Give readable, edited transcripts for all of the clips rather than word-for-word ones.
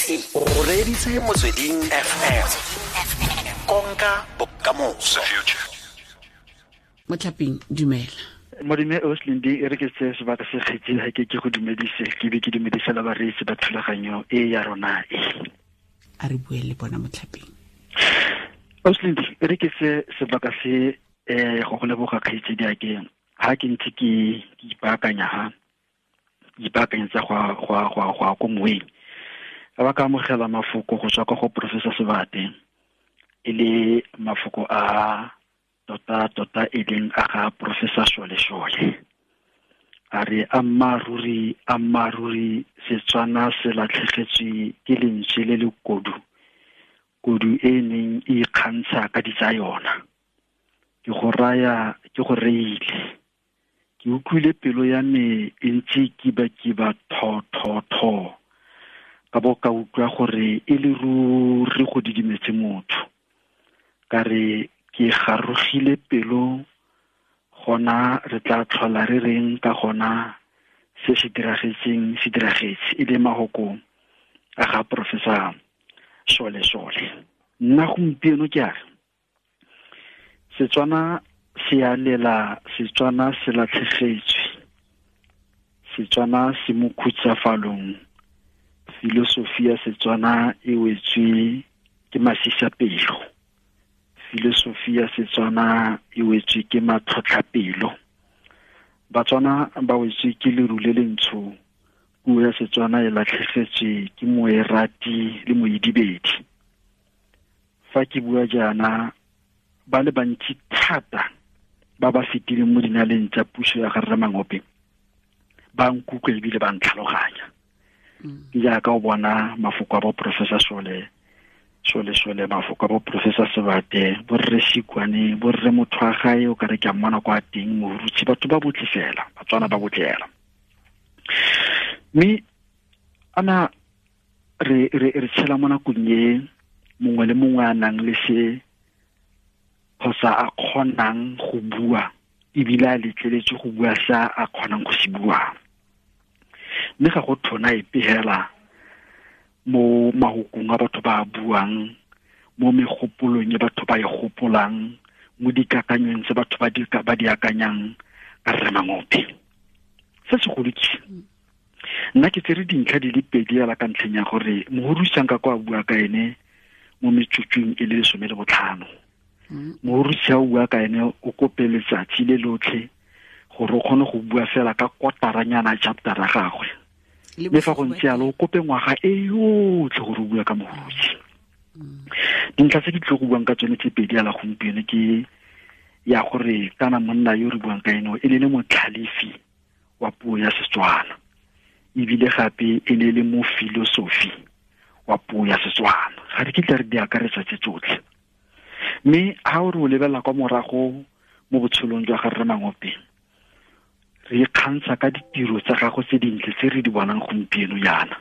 O reditse Motsweding FM, konka bokamoso. Motlhaping, dumela. Modime Oslindi, e re ke tseye sebaka se kgetseng ga ke go dumedise, ke be ke dumedise la bareetsi ba thulaganyo e ya rona e. A re bue le bona, Motlhaping. Oslindi, e re ke tseye sebaka se go go leboga kgaitsedi a ke ha ke ntse ke ipaakanya ha ipaakanyetsa go ko moeng, ka ba ka amogela mafoko go tswa kwa go Professor Sebate, e le mafoko a tota tota e leng a ga Professor Shole Shole. A re ammaaruri ammaaruri Setswana se latlhegetswe ke lentswe le le kodu, kodu e neng e ikgantsha ka ditsa yona. Ke go raya, ke go reile. Ke utlwile pelo ya me e ntse kiba-kiba tho tho tho. Ka bo ka utlwa gore e le ruri go didimetse motho. Ka re ke garogile pelo, gona re tla tlhola re reng ka gona se se diragetseng se diragetse, e le mahoko a ga Professor Shole Shole. Nna gompieno ke a re Setswana se a lela, Setswana se latlhegetswe, Setswana se mo khutsafalong, filosofi ya Setswana e wetswe ke masisapelo, filosofi ya Setswana e wetswe ke matlhotlhapelo. Batswana ba wetswe ke leru le lentsho, puo ya Setswana e latlhegetswe ke moerati le moidibedi. Fa ke bua jaana, ba le bantsi thata ba ba fetileng mo dinaleng tsa puso ya ga Rre Mangope ba nkutlwa ebile ba ntlhaloganya. Ke jaaka o bona mafoko a bo Professor Shole Shole Shole, mafoko a bo Professor Sebate, bo Rre Sikwane, bo Rre Mothwagae, o kare ke a mmona kwa teng, Mohurutshi, batho ba botlhe fela, Batswana ba botlhe fela. Mme ana re tshela mo nakong e mongwe le mongwe a nang le se kgotsa a kgonang go bua, ebile a letleletswe go bua sa a kgonang go se bua. Mme ga go thona epe hela mo mahokong a batho ba buang, mo megopolong e batho ba e gopolang, mo dikakanyong tse batho ba di akanyang ka Rre Mangope. Se segolo ke nna ke tsere dintlha di le pedi hela ka ntlheng ya gore mohorusang ka kwa bua ka ene mo metsotsong e le 15. Mohorusang a bua ka ene o kope letsatsi le lotlhe gore o kgone go bua fela ka kotaranyana chapter ya gagwe. Mme fa go ntse jalo, o kope ngwaga e yotlhe gore o bua ka Mohurutshi. Dintlha tse ke tlile go buang ka tsone tse pedi hela gompieno ke ya gore kana monna yo re buang ka ene e ne le motlhalefi wa puo ya Setswana, ebile gape e ne le mo filosofi wa puo ya Setswana. Ga re kitla re di akaretsa tse tsotlhe. Mme ha o re o lebelela kwa morago mo botshelong jwa ga Rre Mangope, re ikgantsha ka ditiro tsa gagwe tse dintle tse re di bonang gompieno jaana,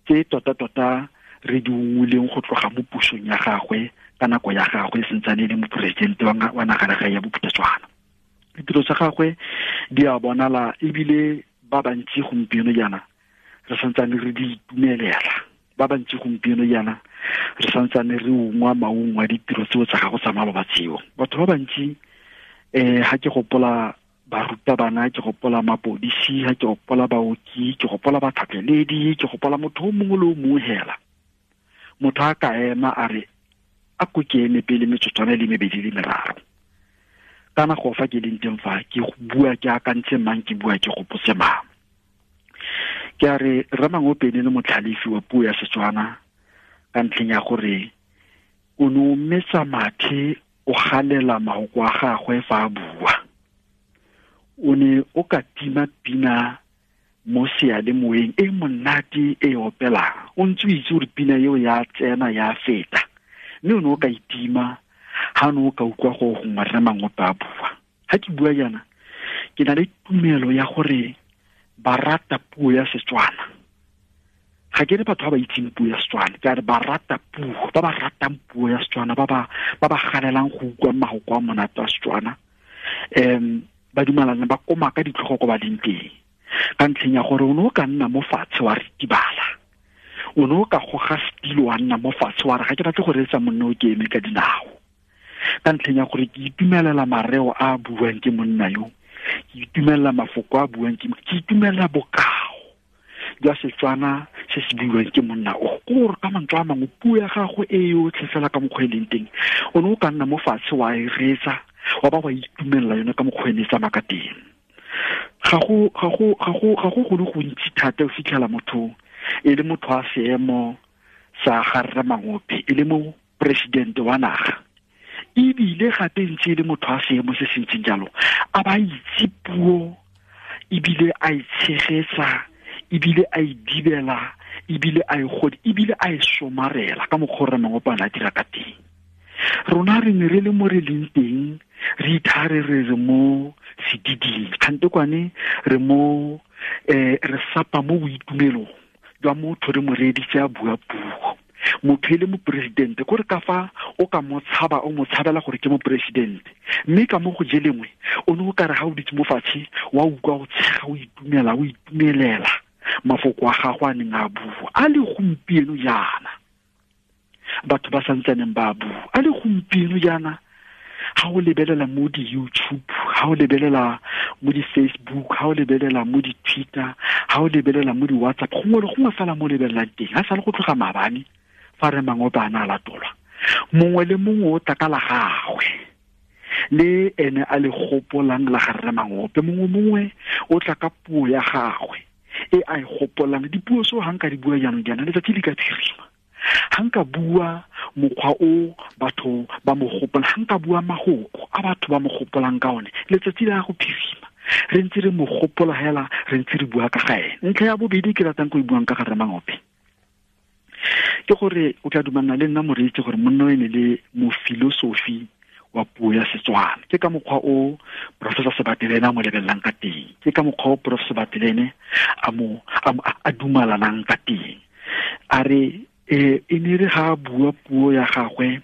tse tota-tota re di ungwileng go tloga mo pusong ya gagwe ka nako ya gagwe e santsane e le moporesidente wa nagalegae ya Bophuthatswana. Ditiro tsa gagwe di a bonala ebile ba bantsi gompieno jaana re santsane re di itumelela, ba bantsi gompieno jaana re santsane re ungwa maungo a ditiro tseo tsa gago tsa maloba tseo. Batho ba bantsi ha ke gopola barutabana, ke gopola mapodisi, ha ke gopola baoki, ke gopola batlhatlheledi, ke gopola motho o mongwe le o mongwe hela. Motho a ka ema a re a ko ke eme pele metsotswana e le mebedi le meraro, kana go fa ke leng teng fa ke bua ke akantse mang, ke bua ke gopotse mang. Ke a re Rre Mangope e ne le motlhalefi wa puo ya Setswana ka ntlheng ya gore o ne o metsa mathe, o galela mahoko a gagwe fa a bua. O ne o ka tima pina mo seyalemoyeng e monate e opelang, o ntse o itse gore pina eo ya tsena ya feta, mme o ne o ka itima ha o ne o ka utlwa go gongwe Rre Mangope a bua. Ha ke bua jaana, ke na le tumelo ya gore ba rata puo ya Setswana. Ga ke re batho ba ba itseng puo ya Setswana, ke a re ba rata puo, ba ba ratang puo ya Setswana, ba ba galelang go utlwa mahoko a monate a Setswana, ba dumalana ba koma ka ditlhogo ko ba leng teng, ka ntlheng ya gore o ne o ka nna mo fatshe wa ritibala, O ne o ka goga setilo wa nna mo fatshe wa re ga ke batle go reetsa monna o ke eme ka dinao, ka ntlheng ya gore ke itumelela mareo a a buang ke monna yo, ke itumelela mafoko a buang ke, ke itumelela bokao jwa Setswana se se buiwang ke monna o. Gore ka mantswe a mangwe puo ya gagwe e yotlhe fela ka mokgwa e leng teng, o ne o ka nna mo fatshe wa e reetsa wa ba wa itumelela yone ka mokgwa e ne e tsamaya ka teng. Ga go go le gontsi thata o fitlhela motho e le motho a seemo sa ga Rre Mangope, e le mo presidente wa naga, ebile gape ntse e le motho a seemo se se ntseng jalo, a ba itse puo ebile a e tshegetsa ebile a e dibela ebile a e godi ebile a e somarela ka mokgwa o Rre Mangope a ne a dira ka teng. Rona re ne re le mo re leng teng, re ithare re re mo sediding, kgante kwane re mo re sapa mo boitumelong jwa motho re mo reeditse a bua puo. Motho e le moporesidente, kore ka fa o ka mo tshaba, o mo tshabela gore ke moporesidente, mme ka mo go je lengwe o ne o kare ga o ditse mo fatshe wa utlwa o tshega, o itumela, o itumelela mafoko a gagwe a neng a bua. A le gompieno jaana batho ba santsaneng ba bua, a le gompieno jaana ga o lebelela mo di-YouTube, ga o lebelela mo di-Facebook, ga o lebelela mo di-Twitter, ga o lebelela mo di-WhatsApp, gongwe le gongwe fela mo lebelelang teng, ga sale go tloga maabane fa Rre Mangope a ne a latolwa, mongwe le mongwe o tla ka la gagwe le ene a le gopolang la ga Rre Mangope, mongwe mongwe o tla ka puo ya gagwe e a e gopolang. Dipuo seo ga nka di bua jaanong jaana letsatsi le ka phirima, ga nka bua mokgwa o batho ba mo gopolang, ga nka bua magoko a batho ba mo gopolang ka one, letsatsi le ya go phirima re ntse re mo gopola hela, re ntse re bua ka ga ene. Ntlha ya bobedi ke ratang go e buang ka ga Rre Mangope ke gore o tla dumalana le nna moreetsi gore monna o ene le mofilosofi wa puo ya Setswana. Ke ka mokgwa o Professor Sebatelene a mo lebelelang ka teng, ke ka mokgwa o Prof Sebatelene a mo a dumalanang ka teng. A re e ne re ga a bua puo ya gagwe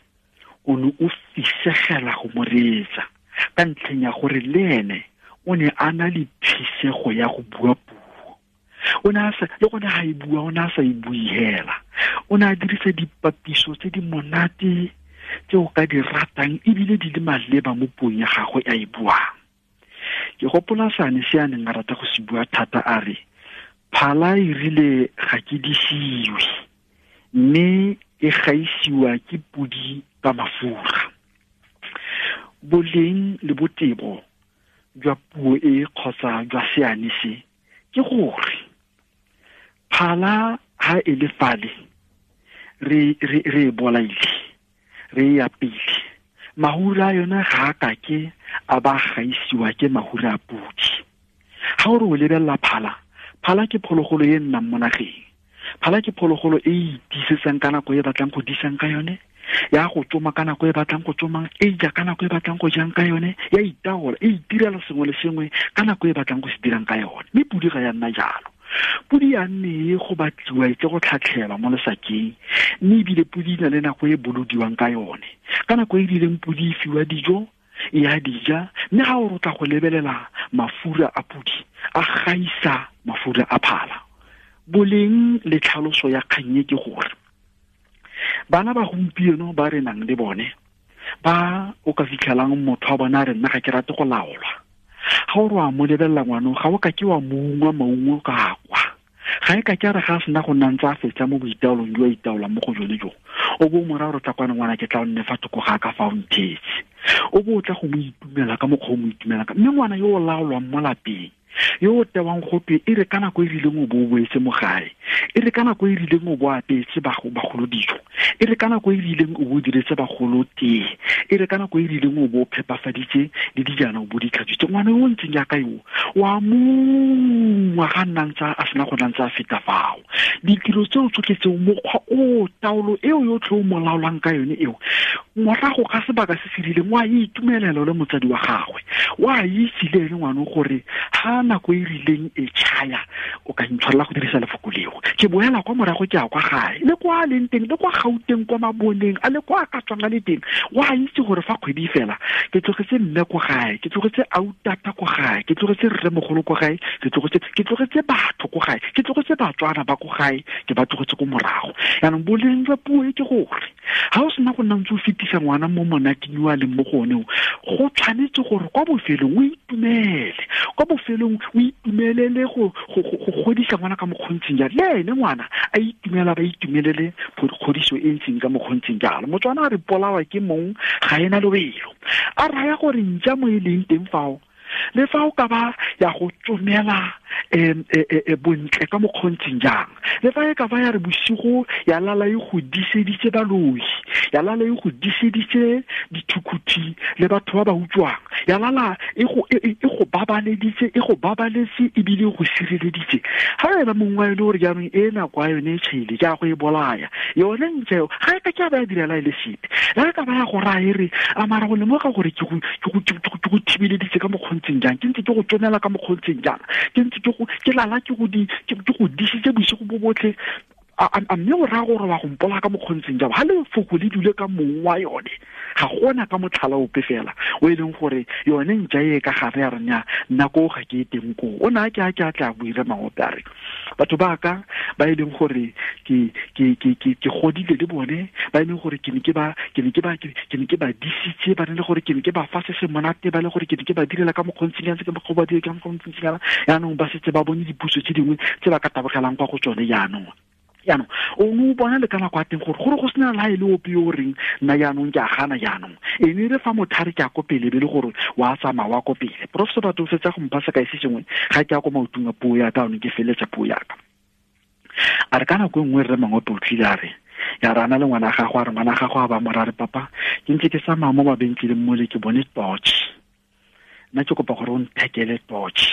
o ne o fisegela go mo reetsa ka ntlheng ya gore le ene o ne a na le phisego ya go bua puo. O ne a sa, le gone ga e bua o ne a sa e bue hela, o ne a dirisa dipapiso tse di monate tse o ka di ratang ebile di le maleba mo puong ya gagwe a e buang. Ke gopola sane se a neng a rata go se bua thata, a re phala e rile ga ke disiwe mme e gaisiwa ke podi ka mafura. Boleng le botebo jwa puo e kgotsa jwa seane se ke gore phala ha e le fale re e bolaile, re e apile, mahura a yona ga a kake a ba gaisiwa ke mahura a podi. Ga o re o lebelela phala, phala ke phologolo e nnang mo nageng, phala ke phologolo e e itisetsang ka nako e batlang go disang ka yone, ya go tsoma ka nako e batlang go tsomang, e ja ka nako e batlang go jang ka yone, ya itaola, e itirela sengwe le sengwe ka nako e batlang go se dirang ka yone. Mme podi ga ya nna jalo. Podi ya nne e go batliwa e tle go tlhatlhelwa mo lesakeng, mme ebile podi e na le nako e bolodiwang ka yone. Ka nako e rileng podi e fiwa dijo, e a dija, mme ga o rotla go lebelela mafura a podi a gaisa mafura a phala. Boleng le tlhaloso ya kgang e ke gore bana ba gompieno ba re nang le bone ba o ka fitlhelang motho wa bona a re nna ga ke rate go laolwa, ga o re wa mo lebelela ngwanong ga o ka ke wa mo ungwa maungo ka kwa, ga e ka ke a re ga a sena go nna ntse a fetsa mo boitaolong jo a itaolang mo go jone jo, o bo o mo raya gore tla kwana ngwana ke tla o nne fa thoko ga ka fa o nthetse, o bo o tla go mo itumela ka mokgwa o mo itumela ka. Mme ngwana yo o laolwang mo lapeng, yo o tewang gotwe e re ka nako e rileng o bo o boetse mo gae, e re ka nako e rileng o bo apetse bagolo dijo, e re ka nako e rileng o bo o diretse bagolo tee, e re ka nako e rileng o bo o phepafaditse le dijana o bo di tlhatswitse. Ngwana yo o ntseng jaaka yo wa mongwa ga nna ntse a sena go nna ntse a feta fao. Ditiro tseo tsotlhe tseo, mokgwa o taolo eo yotlhe o mo laolang ka yone eo, morago ga sebaka se se rileng wa itumelela le motsadi wa gagwe, wa itse le ene ngwana gore ha Fa nako e rileng e tšhaya, o ka ntshwarela go dirisa lefoko leo, ke boela kwa morago, ke ya kwa gae, le kwa a leng teng, le kwa Gauteng, kwa Maboneng a, le kwa a ka tswang a le teng, wa itse gore fa kgwedi fela ke tlogetse mme kwa gae, ke tlogetse autata kwa gae, ke tlogetse rremogolo kwa gae, ke tlogetse batho kwa gae, ke tlogetse Batswana ba kwa gae, ke ba tlogetse ko morago. Yaanong boleng jwa puo e ke gore ga o sena go nna ntse o fetisa ngwana mo monateng yo a leng mo go one, go tshwanetse gore kwa bofelong o itumele, kwa bofelong o itumelele go godisa ngwana ka mokgontseng jalo, le ene ngwana a itumela, ba itumelele kgodiso e ntseng ka mokgontseng jalo. Motswana a re polawa ke mong ga ena lobelo, a raya gore ntša mo e leng teng fao, le fa o ka ba ya go tsomela bontle ka mokgontseng jang, le fa e ka ba ya re bosigo ya lala e go diseditse baloi, ya lala e go diseditse dithukhuthi le batho ba ba utswang, ya lala e go babaleditse, e go babaletse ebile e go sireleditse. Ga wena mongwe e le gore jaanong e nako ya yone e tšhaile, ke a go e bolaya yone ntse eo, ga e ka ke a ba ya direla e le sepe, le ga e ka ba ya go raya e re a mara go lemoga gore ke go thibeleditse ka mokgontseng jang, ke ntse ke go tsomela ka mokgontseng jang, ke ntse ke lala ke go disitse bosigo bo botlhe, a mme o raya gore wa go mpola ka mokgontseng jang. Ga lefoko le dule ka mong wa yone, ga gona ka motlhala ope fela o e leng gore yone ntša e ka gare ya rena nako ga ke e teng koo. O ne a ke a ke a tla buire Mangope a re batho ba ka ba e leng gore ke godile le bone, ba e leng gore ke ne ke ba disitse, ba ne le gore ke ne ke ba fa se se monate, ba le gore ke ne ke ba direla ka mokgontseng jang, ke ba dire ka mokgontseng jang, jaanong ba setse ba bone dipuso tse dingwe tse ba ka tabogelang kwa go tsone jaanong. Jaanong o ne o bona le ka nako ya teng gore go sena le ha e le ope yo o reng nna jaanong ke a gana jaanong, e ne re fa mothare ke a ko pele be le gore wa tsamaya wa ko pele. Professor batho o fetsa go mpha sekai se sengwe ga ke ya ko maotong a puo ya ka, anong ke feletsa puo ya ka. A re ka nako e nngwe rre Mangope o tlile a re ya re ana le ngwana gago, a re ngwana gago a ba mo ra re papa ke ntse ke tsamaya mo mabenkeleng mole ke bone torch, nna ke kopa gore o nthekele torch.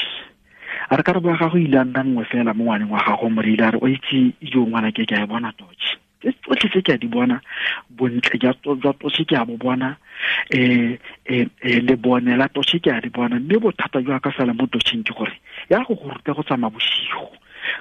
A re karabo ya gago ile a nna nngwe fela mo ngwaneng wa gago, mo re ile a re o itse jo ngwana ke a e bona torch, tse tsotlhe tse ke a di bona, bontle jwa torch ke a bo bona, lebone la torch ke a di bona, mme bothata jwa ka fela mo torcheng ke gore ya go go ruta go tsamaya bosigo,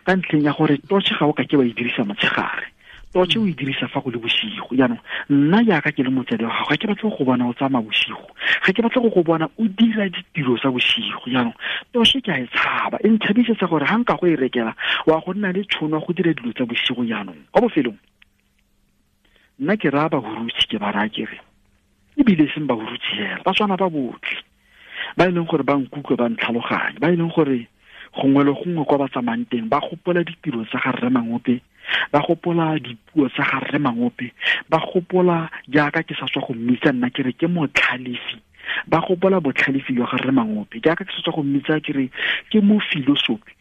ka ntlheng ya gore torch ga o ka ke wa e dirisa motshegare, torch o e dirisa fa go le bosigo. Jaanong nna jaaka ke le motsadi wa gago, ga ke batle go bona o tsamaya bosigo, ga ke batle go bona o dira ditiro tsa bosigo. Jaanong torch ke a e tshaba, e ntshabisetsa gore ga nka go e rekela wa go nna le tšhono ya go dira dilo tsa bosigo. Jaanong kwa bofelong nna ke raya bahurutshi, ke ba raya ke re ebile e seng bahurutshi fela, Batswana ba botlhe ba e leng gore ba nkutlwe, ba ntlhaloganye, ba e leng gore gongwe le gongwe kwa ba tsamayang teng ba gopola ditiro tsa ga rre Mangope, ba gopola dipuo tsa ga rre Mangope, ba gopola jaaka ke sa tswa go mmitsa nna ke re ke motlhalefi, ba gopola botlhalefi jwa ga rre Mangope, jaaka ke sa tswa go mmitsa ke re ke mo filosofi,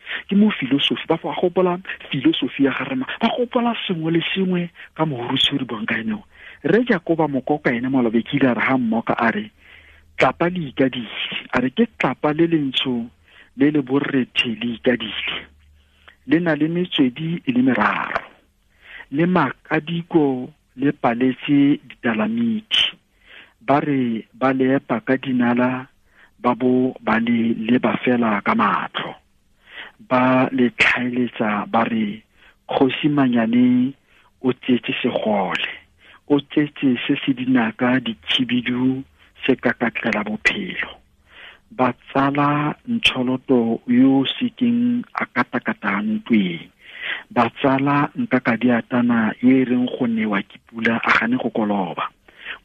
ba gopola filosofi ya ga rre, ba gopola sengwe le sengwe ka mohurutshi o re buang ka ene. Rre Jakoba Mokoka ene malobe ke ile a re ha mmoka a re tlapa le ikadile, a re ke tlapa le lentsho le le borrethe le ikadile, le na le metswedi e le meraro, le makadiko le paletse ditalamiti, ba re ba le epa ka dinala, ba bo ba le leba fela ka matlho, ba le tlhaeletsa ba re kgosi Manyane o tsetse segole, o tsetse se se dinaka dikhibidu se kakatlela bophelo, ba tsala Ntšholoto yo sekeng a katakata ntweng, ba tsala Nkakadiatana yo e reng go newa ke pula a gane go koloba.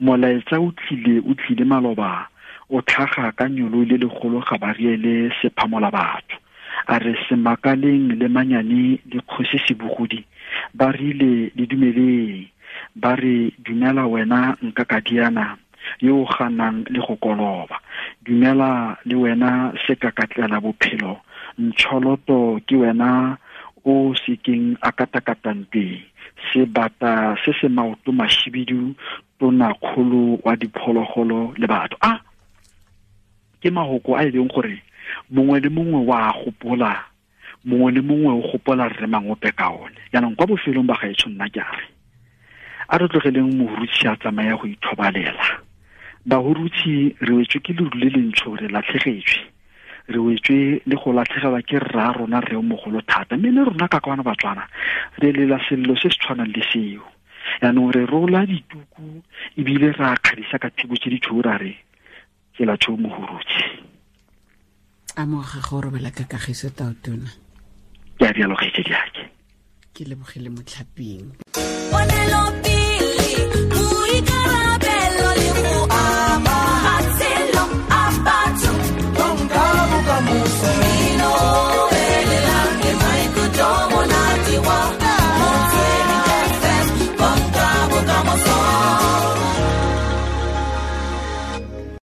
Molaetsa o tlile maloba, o tlhaga ka nyolo le legolo ga ba riele sephamola batho. A re Semakaleng le Manyane le kgosi Sebogodi ba rile le dumeleng, ba re dumela wena Nkakadiana yo o ganang le go koloba, dumela le wena sekakatlela bophelo, Ntšholoto ke wena o sekeng a katakatang teng, sebata se se maoto mashibidu, tonakgolo wa diphologolo le batho. A ke mahoko a e leng gore mongwe le mongwe wa gopola, mongwe le mongwe o gopola rre Mangope ka one. Jaanong kwa bofelong ba gaetsho nna ke a re a re tlogeleng mohurutshi a tsamaya go ithobalela. Bahurutshi re wetswe ke leru le lentsho, re latlhegetswe. Re wetswe le go latlhegelwa ke rra rona rre o mogolo thata, mme le rona ka kwana Batswana re lela sello se se tshwanang le seo. Yaanong re rola dituku ebile ra kgadisa ka thibo tse di tshweu, ra re tsela tshweu Mohurutse. Amoga go robela ka kagiso, Tautona. Ke a rialo, kgaitsedi ake. Ke lebogile motlhaping.